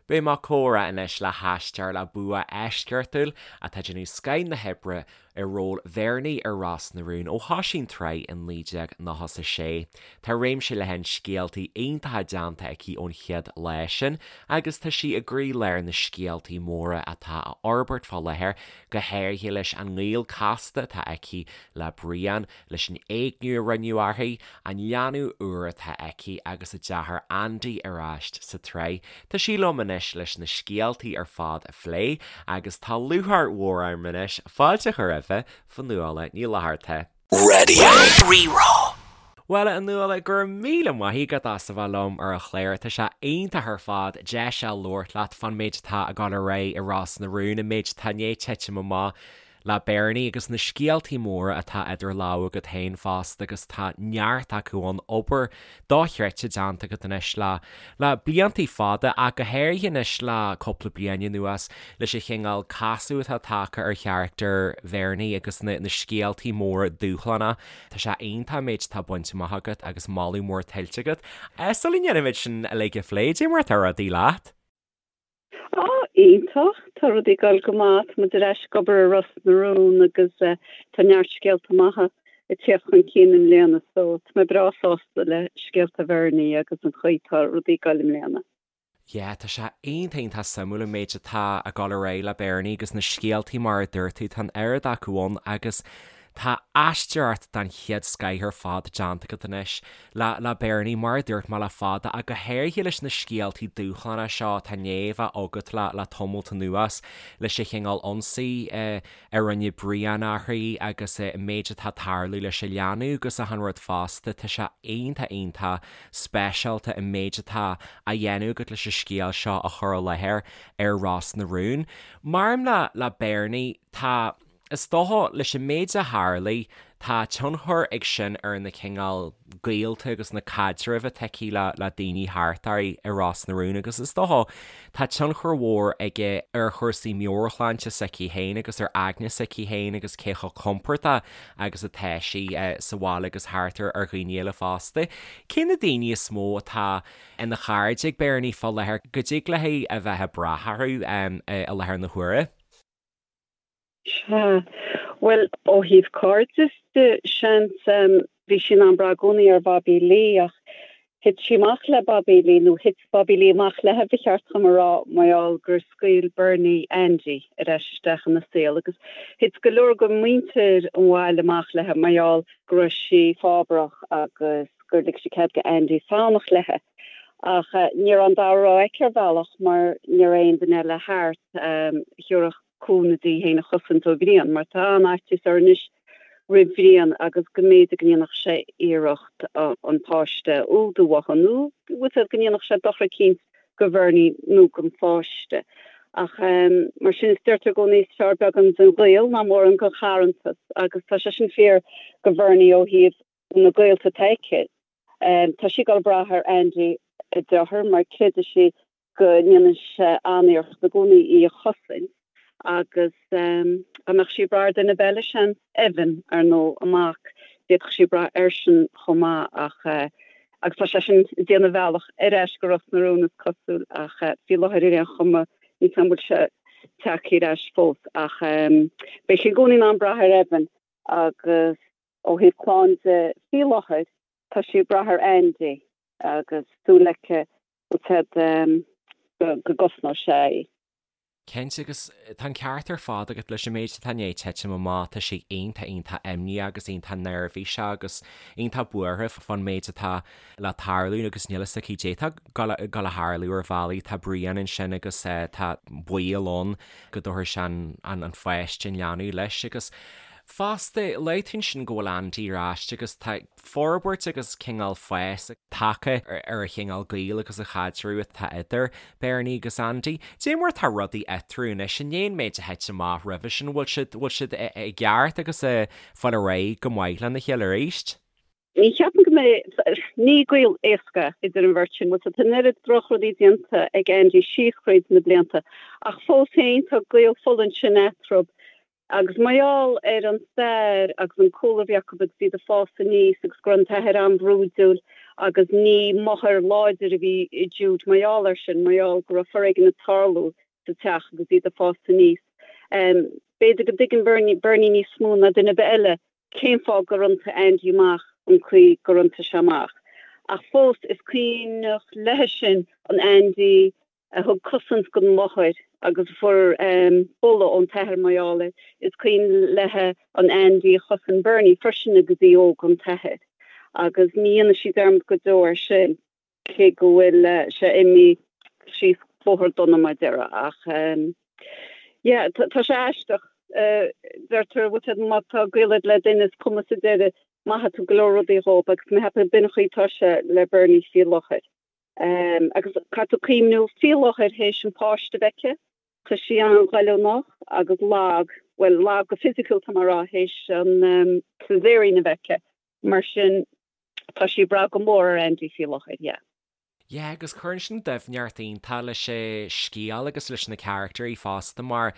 Beidh mé ag comhrá anois le haisteoir le bua eisceachtúil atá ag déanamh scoth na hoibre i ról Bhernie ar Ros na Rún ó thosaigh an tsraith in 1996. Tá réimse leathan scéaltaí iontacha déanta aici ón chéad lá sin agus tá sí i gcroílár na scéaltaí móra atá á fhorbairt fá láthair, go háirithe leis an ngaol casta atá aici le Brian, leis an éigniú a rinneadh uirthi, an leanbh úr atá aici agus a deartháir Andy ar ais sa tsraith. Tá sí liom anois leis na scéaltaí ar fad a phlé agus tá lúcháir mhór orm anois fáilte a chur roimhe, Fionnuala Ní Fhlatharta. Radio Rí-Rá. Bhuel, a Fhionnuala, go raibh míle maith agat as a bheith liom ar an chlár. Tá sé iontach ar fad deis a labhairt leat fán méid atá ag dul ar aghaidh i Ros na Rún, an méid atá i ndiaidh titim amach le Bernie agus na scéaltaí móra atá idir lámha agat féin fosta agus tá neart acu ann, obair dochreidte déanta agat anois le le bliantaí fada ach go háirithe anois le cúpla bliain anuas leis an chineál casadh atá tagtha ar charachtar Bhernie agus na na scéaltaí móra dúshlánacha. Tá sé iontach an méid atá bainte amach agat agus moladh mór tuillte agat. Sula ndéanaimid sin uilig a phlé, cad é mar atá rudaí leat? Á, iontach. Tá rudaí ag dul go maith. Tá muid ar ais ag obair ar Ros na Rún agus tá neart scéalta maithe ag tíocht chun cinn i mbliana so tá mé breá sásta le scéalta Bhernie agus an chaoi tá rudaí ag dul i mbliana. Yeah, tá sé iontach iontach suimiúil an méid atá ag dul ar aghaidh le Bernie agus na scéaltaí mar a dúirt tú, tá an oiread acu ann agus Tá aisteoireacht den chéad scoith ar fad déanta agat anois le le Bernie, mar a dúirt mé le fada, ach go háirithe leis na scéaltaí dúshlánacha seo atá i ndiaidh a bheith agat le le tamalt anuas, leis an chineál ionsaí a rinne Brian uirthi agus an méid atá ag tarlú leis an leanbh agus achan rud fosta. Tá sé iontach iontach speisialta an méid atá á dhéanamh agat leis an scéal seo a chur i láthair ar Ros na Rún. Maidir le le Bernie, tá. Is dócha, leis an méid a tharlaigh, tá tionchar ag sin ar na cineál gaolta agus na caidrimh atá aici le le daoine thart uirthi i Ros na Rún agus is dócha, tá tionchar mhór aige ar chúrsaí meabhairshláinte s'aici féin agus ar aigne s'aici féin agus cé chomh compordach agus atá sí sa bhaile agus thart ar ar dhaoine eile fosta. Cé na daoine is mó atá ina chairde ag Bernie fá láthair go dtig léi a bheith ag brath orthu i láthair na huaire? Sea. Bhuel, ó thaobh cairdis de, seans, bhí sí in ann brath i gcónaí ar Bhobby Lee ach thit sí amach le Bobby Lee, nó thit Bobby Lee amach léi, ba cheart dhom a rá, mar gheall gur scaoil Bernie Andy ar ais isteach ina saol agus thit go leor de mhuintir an bhaile amach léi mar gheall go raibh sí fábharach agus gur lig sí cead do Andy fanacht léi. Ach ní raibh an dara rogha aici ar bhealach mar ní raibh aon duine eile thart a thabharfadh cúnamh di í féin a chosaint ó Bhrian, mar tá an-fhaitíos uirthi anois roimh Bhrian agus go mb'fhéidir go ndéanfadh sé iarracht an páiste a fhuadú uathu, nó bhfuil fhios go ndéanfadh sé dochar eicínt go Bhernie nó don pháiste. Ach mar sin, is deirtear i gcónaí is fearr beagán den ghaol ná mórán den charrantas, agus tá sé sin fíor go Bhernie ó thaobh na gaolta atá aici. Tá sí ag dul ag brath ar Andy, a deartháir, mar creideann sí go ndéanann sé an-iarracht i gcónaí í a chosaint agus dá mbeadh sí ag brath ar duine ar bith eile, seans, Evan, ar ndóigh, a mac, d'fhéadfadh sí brath airsean chomh maith ach agus tá seisean ag déanamh a bhealach ar ais go Ros na Rún is cosúil ach faoi láthair ar aon chuma níl 's a'm an bhfuil sé tagtha ar ais fós ach beidh sí i gcónaí in ann brath ar Evan agus ó thaobh clann de faoi láthair tá sí ag brath ar Andy agus súil aici go gcosnóidh sé í. Cinnte, agus tá an ceart ar fad agat leis an méid atá i ndiaidh titim amach, tá sí iontach iontach imníoch agus iontach neirbhíseach agus iontach buartha fán méid atá le tarlú agus níl fhios aici caidé atá ag dul a tharlú ar bhealaí, tá Brian ansin agus tá baol ann go dtabharfaidh sé an pháiste, an leanbh leis agus fosta, luaigh tú ansin go bhfuil Andy ar ais agus tá forbairt agus cineál fás tagtha ar an chineál gaoil agus an chaidreamh atá idir Bernie agus Andy. Cad é mar atá rudaí eatarthu anois, i ndiaidh an méid a thit amach roimhe sin, bhfuil siad, bhfuil siad i gceart agus ag fáil ar aghaidh go maith lena chéile arís? Ní cheapaim go mbeidh, ní gaol éasca idir an bheirt sin, bhfuil 's a'd, tá an oiread drochrudaí déanta ag Andy síos thríd na blianta ach fós féin tá gaol fola ansin eatarthu. Agus mar gheall ar an stair agus an cúlra a bhí acu agus iad ag fás aníos agus go raibh an t-athair an-bhrúidiúil. Agus ní máthair láidir a bhí i Jude mar gheall air sin, mar gheall go raibh foréigean ag tarlú sa teach agus iad ag fás aníos. B'fhéidir go dtuigeann Bernie, Bernie níos mó ná duine ar bith eile cén fáth gur iontaigh Andy amach an chaoi gur iontaigh sé amach. Ach fós, is cuimhneach léithe sin an Andy a thug cosaint don mháthair agus a fuair buladh ón t-athair mar gheall air. Is cuimhin léithe an Andy a chosain Bernie freisin agus í óg ón t-athair. Agus ní dhéanfaidh sí dearmad go deo air sin. cé go bhfuil sé imithe síos bóthar dona mar a déarfá ach yeah tá sé aisteach. Deirtear bhfuil sé má tá gaol agat le duine is cuma sa deireadh maithfidh tú go leor rudaí dhób agus mé cheapadh b'in an chaoi atá sé le Bernie faoi láthair. Agus caithfidh tú cuimhniú faoi láthair théis an páiste a bheith aici tá sí an-ghoilliúnach agus lag, bhuel lag go fisiciúil tá mé a rá théis an caesarean a bheith aici mar sin Tá sí ag brath go mór ar Andy faoi láthair, yeah. Yeah, agus cuireann sin doimhneacht iontach leis an scéal agus leis na caractéirí fosta mar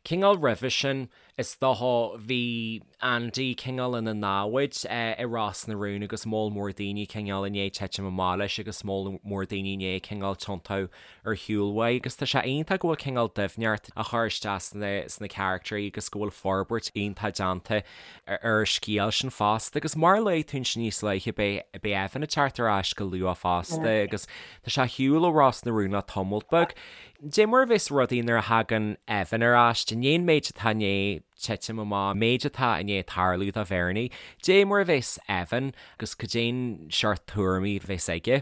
cineál roimhe sin is dócha bhí Andy cineál ina namhaid i Ros na Rún agus moll mór daoine cineál i ndiaidh titim amach leis agus moll mór daoine i ndiaidh cineál tiontú ar shiúl uaidh agus tá sé iontach go bhfuil cineál doimhneacht á chur isteach sna sna caractéirí agus go bhfuil forbairt iontach déanta ar an scéal sin fosta agus mar a luaigh tú ansin níos luaithe beidh beidh Evan ag teacht ar ais go luath fosta agus tá sé ar shiúl ó Ros na Rún le tamalt beag. Dé mar a bheas rudaí nuair a thagann Evan ar ais, i ndiaidh an méid atá i ndiaidh titim amach, an méid atá i ndiaidh tarlú do Bhernie, dé mar a bheas Evan agus cad é an seort tuairimí a bheas aige.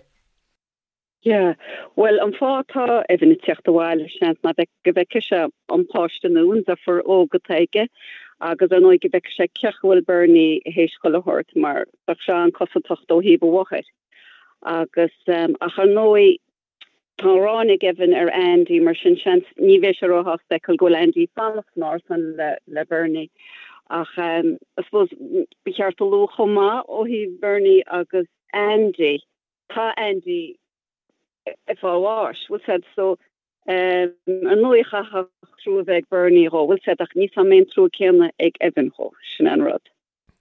Yeah. Bhuel, an fáth atá Evan ag teacht abhaile, seans, ná go bhfeicfidh sé an páiste nua, an deirfiúr óg atá aige, agus ar ndóigh go bhfeicfidh sé cén chaoi a bhfuil Bernie théis chuile shórt, mar bheadh sé an-cosantach ó thaobh a mháthair. Agus, ach ar ndóigh, tá an ghráin ag Evan ar Andy, mar sin seans ní bheidh sé róshásta a fheiceáil go bhfuil Andy ag fanacht san árasán le, le Bernie. Ach, I suppose, ba cheart a lua chomh maith ó thaobh Bernie agus Andy, Tá Andy ag fáil bháis, bhfuil 's a'd, so ar ndóigh chaithfeadh trua a bheith ag Bernie dhó, bhfuil 's a'd, ach níl 's a'm an mbeidh an trua céanna ag Evan dhó, sin an rud.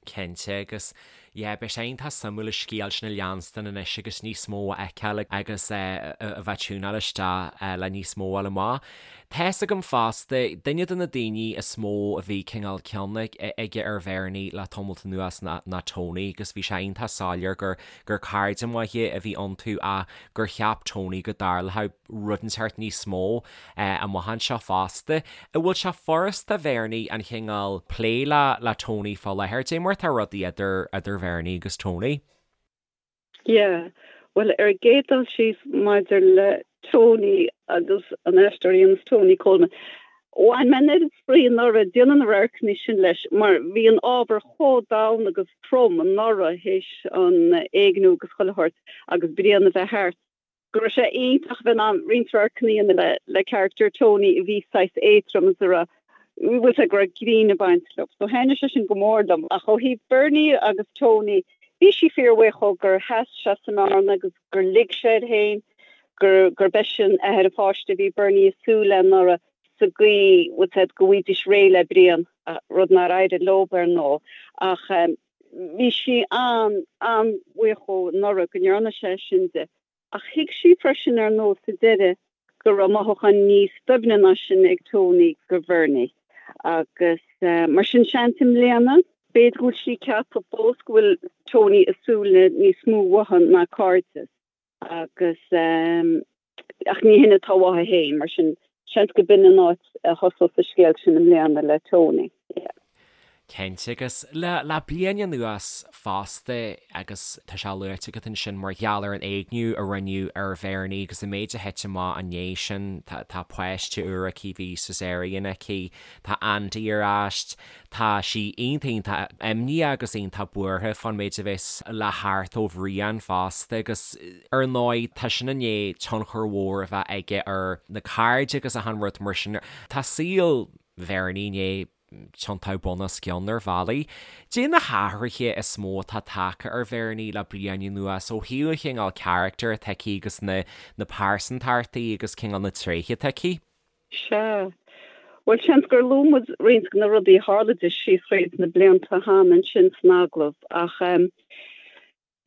Cinnte, agus yeah, beidh sé iontach suimiúil an scéal sin a leanstan anois agus níos mó a fheiceáil agus a bheith ag tiúnáil isteach le níos mó a fháil amach. Tá's agam fosta, duine de na daoine is mó a bhí cineál cion aige ar Bhernie le tamalt anuas ná Tony agus bhí sé iontach soiléir gur gur cairde maithe a bhí iontu ach gur cheap Tony go dtarlódh rud inteacht níos mó amach anseo fosta. An bhfuil sé furasta do Bhernie an chineál plé le le Tony fá láthair? Dé mar atá rudaí idir idir Bhernie agus Tony? Yeah. Bhuel, ar an gcéad dul síos maidir le Tony agus an aisteoir a dhéanas Tony Coleman, bhain mé an oiread spraoi anuraidh ag déanamh na radharcanna sin leis mar bhí an ábhar chomh domhain agus trom anuraidh théis an éigniú agus chuile shórt agus Brian a bheith thart go raibh sé iontach a bheith in ann roinnt radharcanna a dhéanamh le le character Tony a bhí saghas éadrom is a raibh bhfuil 's a'd go raibh grinn ag baint leo. So thaitnigh sé sin go mór liom. Ach ó thaobh Bernie agus Tony, bhí sí fíorbhuíoch dhó gur sheas sé sa mbearna agus gur lig sé air féin gur gurb eisean athair an pháiste a bhí Bernie ag súil le anuraidh sa gcaoi bhfuil 's a'd go bhfaighidís réidh le Brian, rud nár éirigh leo ar ndóigh. Ach bhí sí an, an-bhuíoch dhó anuraidh go ndearna sé sin di. Ach thuig sí freisin ar ndóigh sa deireadh go raibh mothúcháin níos doimhne ná sin ag Tony do Bhernie. Agus mar sin seans i mbliana, b'fhéidir go bhfuil sí ag ceapadh fós go bhfuil Tony ag súil le níos mó uaithi ná cairdeas agus ach ní hin atá uaithi féin, mar sin seans go b'in an áit a thosós an scéal sin i mbliana le Tony. Yeah. Cinnte, agus le le bliain anuas fosta, agus tá sé luaite agat ansin mar gheall ar an éigniú a rinneadh ar Bhernie agus an méid a thit amach i ndiaidh sin, tá tá páiste úr aici, bhí Caesarean aici, tá Andy ar ais, tá sí iontach iontach imníoch agus iontach buartha fán méid a bheas le theacht ó Bhrian fosta agus ar ndóigh tá sin i ndiaidh tionchar mhór a bheith aige ar na cairde agus achan rud mar sin. Tá saol Bhernie i ndiaidh tiontú bun os cionn ar bhealaí. Dé na hathruithe is mó atá tagtha ar Bhernie le bliain anuas ó thaobh an chineál carachtair atá aici agus na na pearsantachtaí agus cineál na tréithe atá aici? Sea. Bhuel, seans gur luaigh muid roinnt de na rudaí a tharla di síos thríd na blianta cheana ansin san agallamh ach.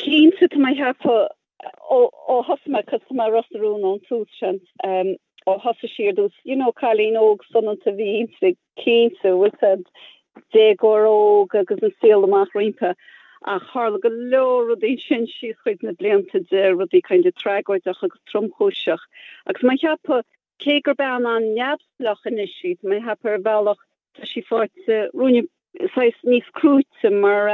Cinnte, tá mé ag ceapadh ó thosaigh mé, cos tá mé ar Ros na Rún ón tús, seans, ó thosaigh sí ar dtús, you know, cailín óg soineanta a bhí inti, cinnte, bhfuil 's a'd, déagóir óg agus an saol amach roimpi, ach tharla go leor rudaí ansin síos thríd na blianta di, rudaí kind of tragóideach agus tromchúiseach. Agus tá mé ag ceapadh, cé gur bean an-neamhspleách anois í, tá mé ag ceapadh ar bhealach tá sí faighte ruainne saghas níos crúite mar,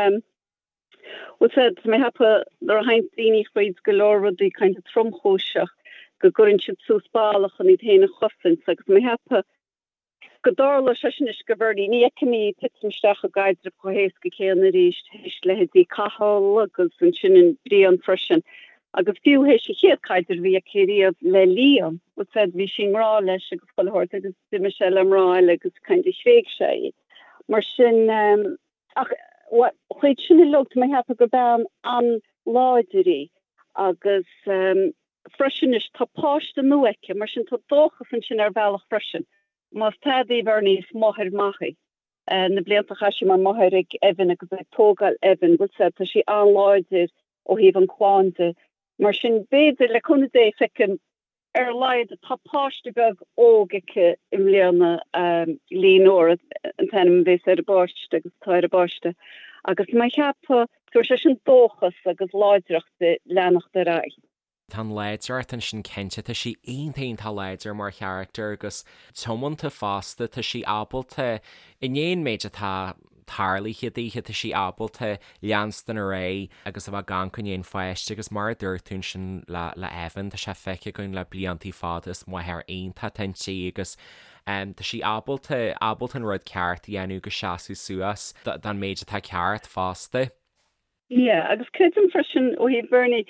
Bhfuil 's a'd, tá mé ag ceapadh nuair a théann daoine thríd go leor rudaí kind of tromchúiseach go gcuireann siad suas balla chun iad féin a chosaint agus tá mé ag ceapadh go dtarlóidh sé sin anois do Bhernie. Ní fheicim í ag titim isteach i gcaidreamh chomh héasca céanna arís théis leithéidí Cathal agus ansin an Brian freisin agus fiú théis an chéad caidreamh a bhí aici riamh le Liam, bhfuil 's a'd, bhí sí i ngrá leis agus chuile shórt agus d'imigh sé le mná eile agus kind of thréig sé í. Mar sin, Ach thríd sin uilig, tá mé ag ceapadh gur bean an-láidir í agus freisin anois tá páiste nua aici, mar sin tá dóchas ansin ar bhealach freisin. Más tada í Bernie, is máthair maith í. Na blianta a chaith sí mar mháthair ag Evan agus ag tógáil Evan, bhfuil 's a'd, tá sí an-láidir ó thaobh an clann de. Mar sin b'fhéidir, le cúnamh Dé, feicim Ar a laghad tá páiste beag óg aici i mbliana, Leonora an t-ainm a bhéas ar an bpáiste agus atá ar an bpáiste, agus tá mé ag ceapadh tabharfaidh sé sin dóchas agus láidreacht di leanacht ar aghaidh. Tá an láidreacht ansin cinnte, tá sí iontach iontach láidir mar charachtar agus tiomanta fosta, tá sí ábalta, i ndiaidh an méid atá tarlaithe daoithe, tá sí ábalta leanstan ar aghaidh agus a bheith ag amharc i ndiaidh an pháiste agus mar a dúirt tú ansin le le Evan, tá sé feicthe againn le bliantaí fada, is máthair iontach atá inti agus tá sí ábalta, ábalta an rud ceart a dhéanamh agus seasamh suas don méid atá ceart fosta. Yeah, agus creidim freisin ó thaobh Bernie,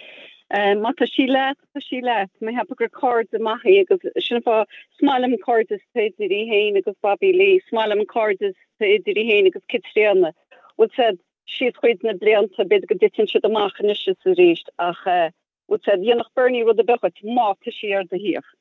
má tá sí leat, tá sí leat. Mé ag ceapadh gur cairde maith í agus sin an fáth, is maith liom an cairdeas atá idir í féin agus Bobby Lee, is maith liom an cairdeas atá idir í féin agus Caitríona. Bhfuil 's a'd, síos thríd na blianta, b'fhéidir go dtiteann siad amach anois is arís ach eh, Bhfuil 's a'd, dhéanfadh Bernie rud ar bith dhuit má tá sí ar do thaobh.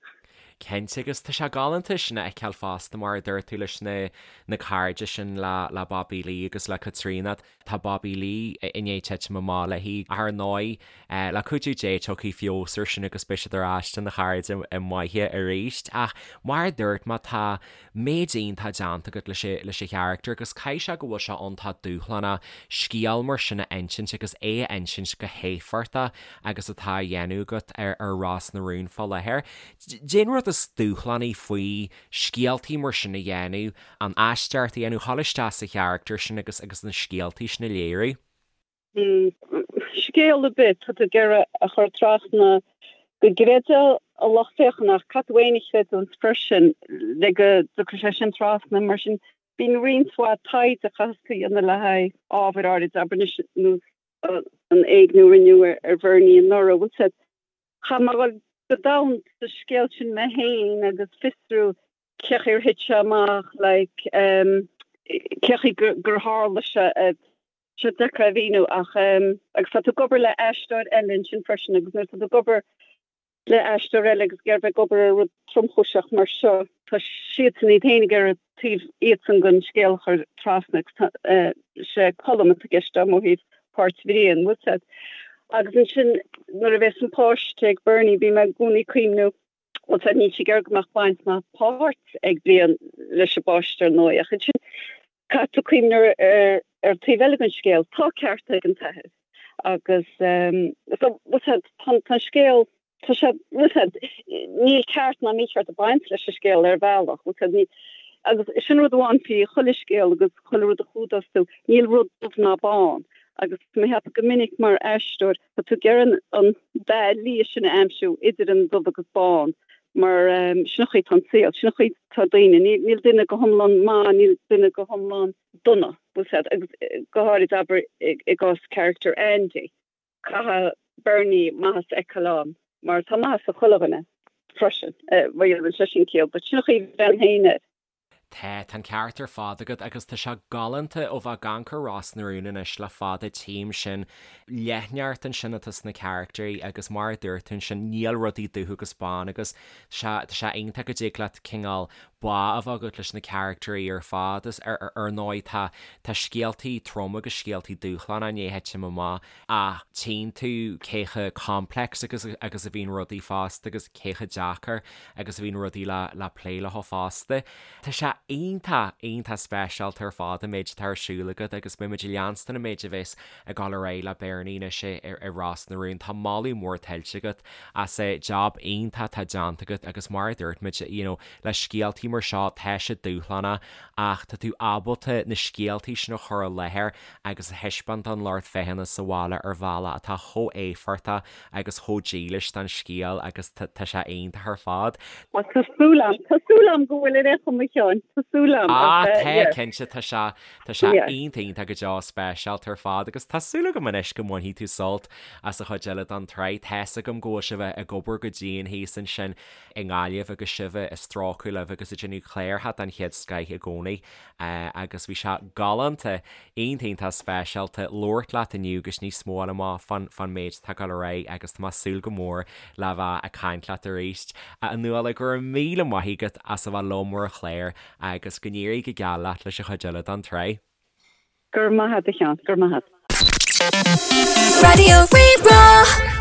Cinnte, agus tá sé galánta sin a fheiceáil fosta mar a dúirt tú leis na na cairde sin le le Bobby Lee agus le Caitríona. Tá Bobby Lee i ndiaidh titim amach léi ach ar ndóigh le cuidiú Dé tiocfaidh feabhas ar sin agus beidh siad ar ais ina chairde maithe arís. Ach mar a dúirt mé tá méid iontach déanta agat leis leis an charachtar agus caithfidh sé go bhfuil sé iontach dúshlánach scéal mar sin a insint agus é a insint go héifeachtach agus atá á dhéanamh agat ar ar Ros na Rún fá láthair. Cén rud is dúshlánaí faoi scéaltaí mar sin a dhéanamh, an aisteoireacht a dhéanamh, dhul isteach sa charachtar sin agus agus na scéaltaí sin a léiriú? Scéal ar bith, tá tú ag iarraidh a chur trasna go gcreidfeadh an lucht féachana ach caithfidh tú féin a chreidiúint freisin le go dtiocfaidh sé sin trasna. Mar sin, bíonn roinnt mhaith taighde a chaitheas tú a dhéanamh le haghaidh ábhair áirid, abair anois, nós an éigniú a rinneadh ar Bhernie anuraidh. Bhfuil 's a'd, chaith mé a dhul go domhain sa scéal sin mé féin agus fiosrú cé chaoi ar thit sé amach, like, cé chaoi gur tharla sé. sé deacair a mhíniú ach agus tá tú ag obair le aisteoir eile ansin freisin agus nuair atá tú ag obair le aisteoir eile agus ag iarraidh bheith ag obair ar rud tromchúiseach mar seo, tá siadsan iad féin ag iarraidh taobh iadsan den scéal a chur trasna agus tá sé Colm atá i gceist agam ó thaobh páirt Bhriain, bhfuil 's a'd. Agus ansin nuair a bhéas an páiste ag Bernie bím i gcónaí ag cuimhniú bhfuil 's a'd níl sí ag iarraidh go mbeadh baint ná páirt ag Brian leis an bpáiste ar ndóigh ach ansin caithfidh tú cuimhneamh ar ar taobh eile den scéal, tá ceart ag an t-athair agus so bhfuil 's a'd tá an scéal tá sé bhfuil 's a'd níl ceart ná mícheart ag baint leis an scéal ar bhealach bhfuil 's a'd ní agus sin rud amháin faoi chuile scéal agus chuile rud a chumhdós tú níl rud dubh ná bán agus mé ag ceapadh go minic mar aisteoir Tá tú ag iarraidh an dath liath sin a aimsiú idir an dubh agus bán mar sin an chaoi atá an saol, sin an chaoi atá daoine. Níl duine go hiomlán maith, níl duine go hiomlán dona, bhfuil 's a'd, agus go háirid abair i gcás character Andy, caithfidh Bernie maitheas a fheiceáil ann mar tá maitheas i chuile dhuine freisin, má dhéanann sé sin ciall, but sin an chaoi a bhreathnaím féin air. Tá, tá an ceart ar fad agat agus tá sé galánta ó bheith ag amharc ar Ros na Rún anois le fada tchím sin leithneacht ansin atá sna carachtairí agus mar a dúirt tú ansin níl rudaí dubh agus bán agus tá sé, tá sé iontach go dtig leat cineál. bá a bheith agat leis na caractairí ar fad is ar ar ndóigh tá tá scéaltaí trom agus scéaltaí dúshlánacha i ndiaidh titim amach ach tchíonn tú cé chomh complex agus agus a bhíonn rudaí fosta agus cé chomh deacair agus a bhíonn rudaí le le plé leo fosta. Tá sé iontach iontach speisialta ar fad an méid atá ar siúl agat agus beidh muid ag leanstan an méid a bheas ag dul ar aghaidh le Beirní anois i Ros na Rún. Tá moladh mór tuillte agat as an jab iontach atá déanta agat agus mar a dúirt muid you know le scéaltaí mar seo tá siad dúshlánach ach tá tú ábalta na scéaltaí sin a chur i láthair agus a thaispeáint don lucht féachana sa bhaile ar bhealach atá chomh éifeachtach agus chomh dílis don scéal agus tá sé iontach ar fad. Bhuel tá súil a'm, tá súil a'm go bhfuil in aon chuma Sheáin, tá súil a'm ach eh yeah. Tá cinnte, tá sé, tá sé iontach iontach go deo speisialta ar fad agus tá súil agam anois go mbainfidh tú sult as an chuid eile den tsraith. Tá's agam go bhfuil sibh ag obair go dian thíos ansin i nGaillimh agus sibh ag strócadh libh agus ag déanamh cláracha den chéad scoith i gcónaí agus bhí sé galánta, iontach iontach speisialta labhairt leat inniu agus níos mó a fháil amach fán fán méid atá ag dul ar aghaidh agus tá mé ag súil go mór le bheith ag caint leat arís. A Nuala, go raibh míle maith agat as a bheith liom ar an chlár agus go n-éirí go geal leat leis an chuid eile den tsraith. Go raibh maith agat a Sheáin, go raibh maith agat. Raidió Rí-Rá.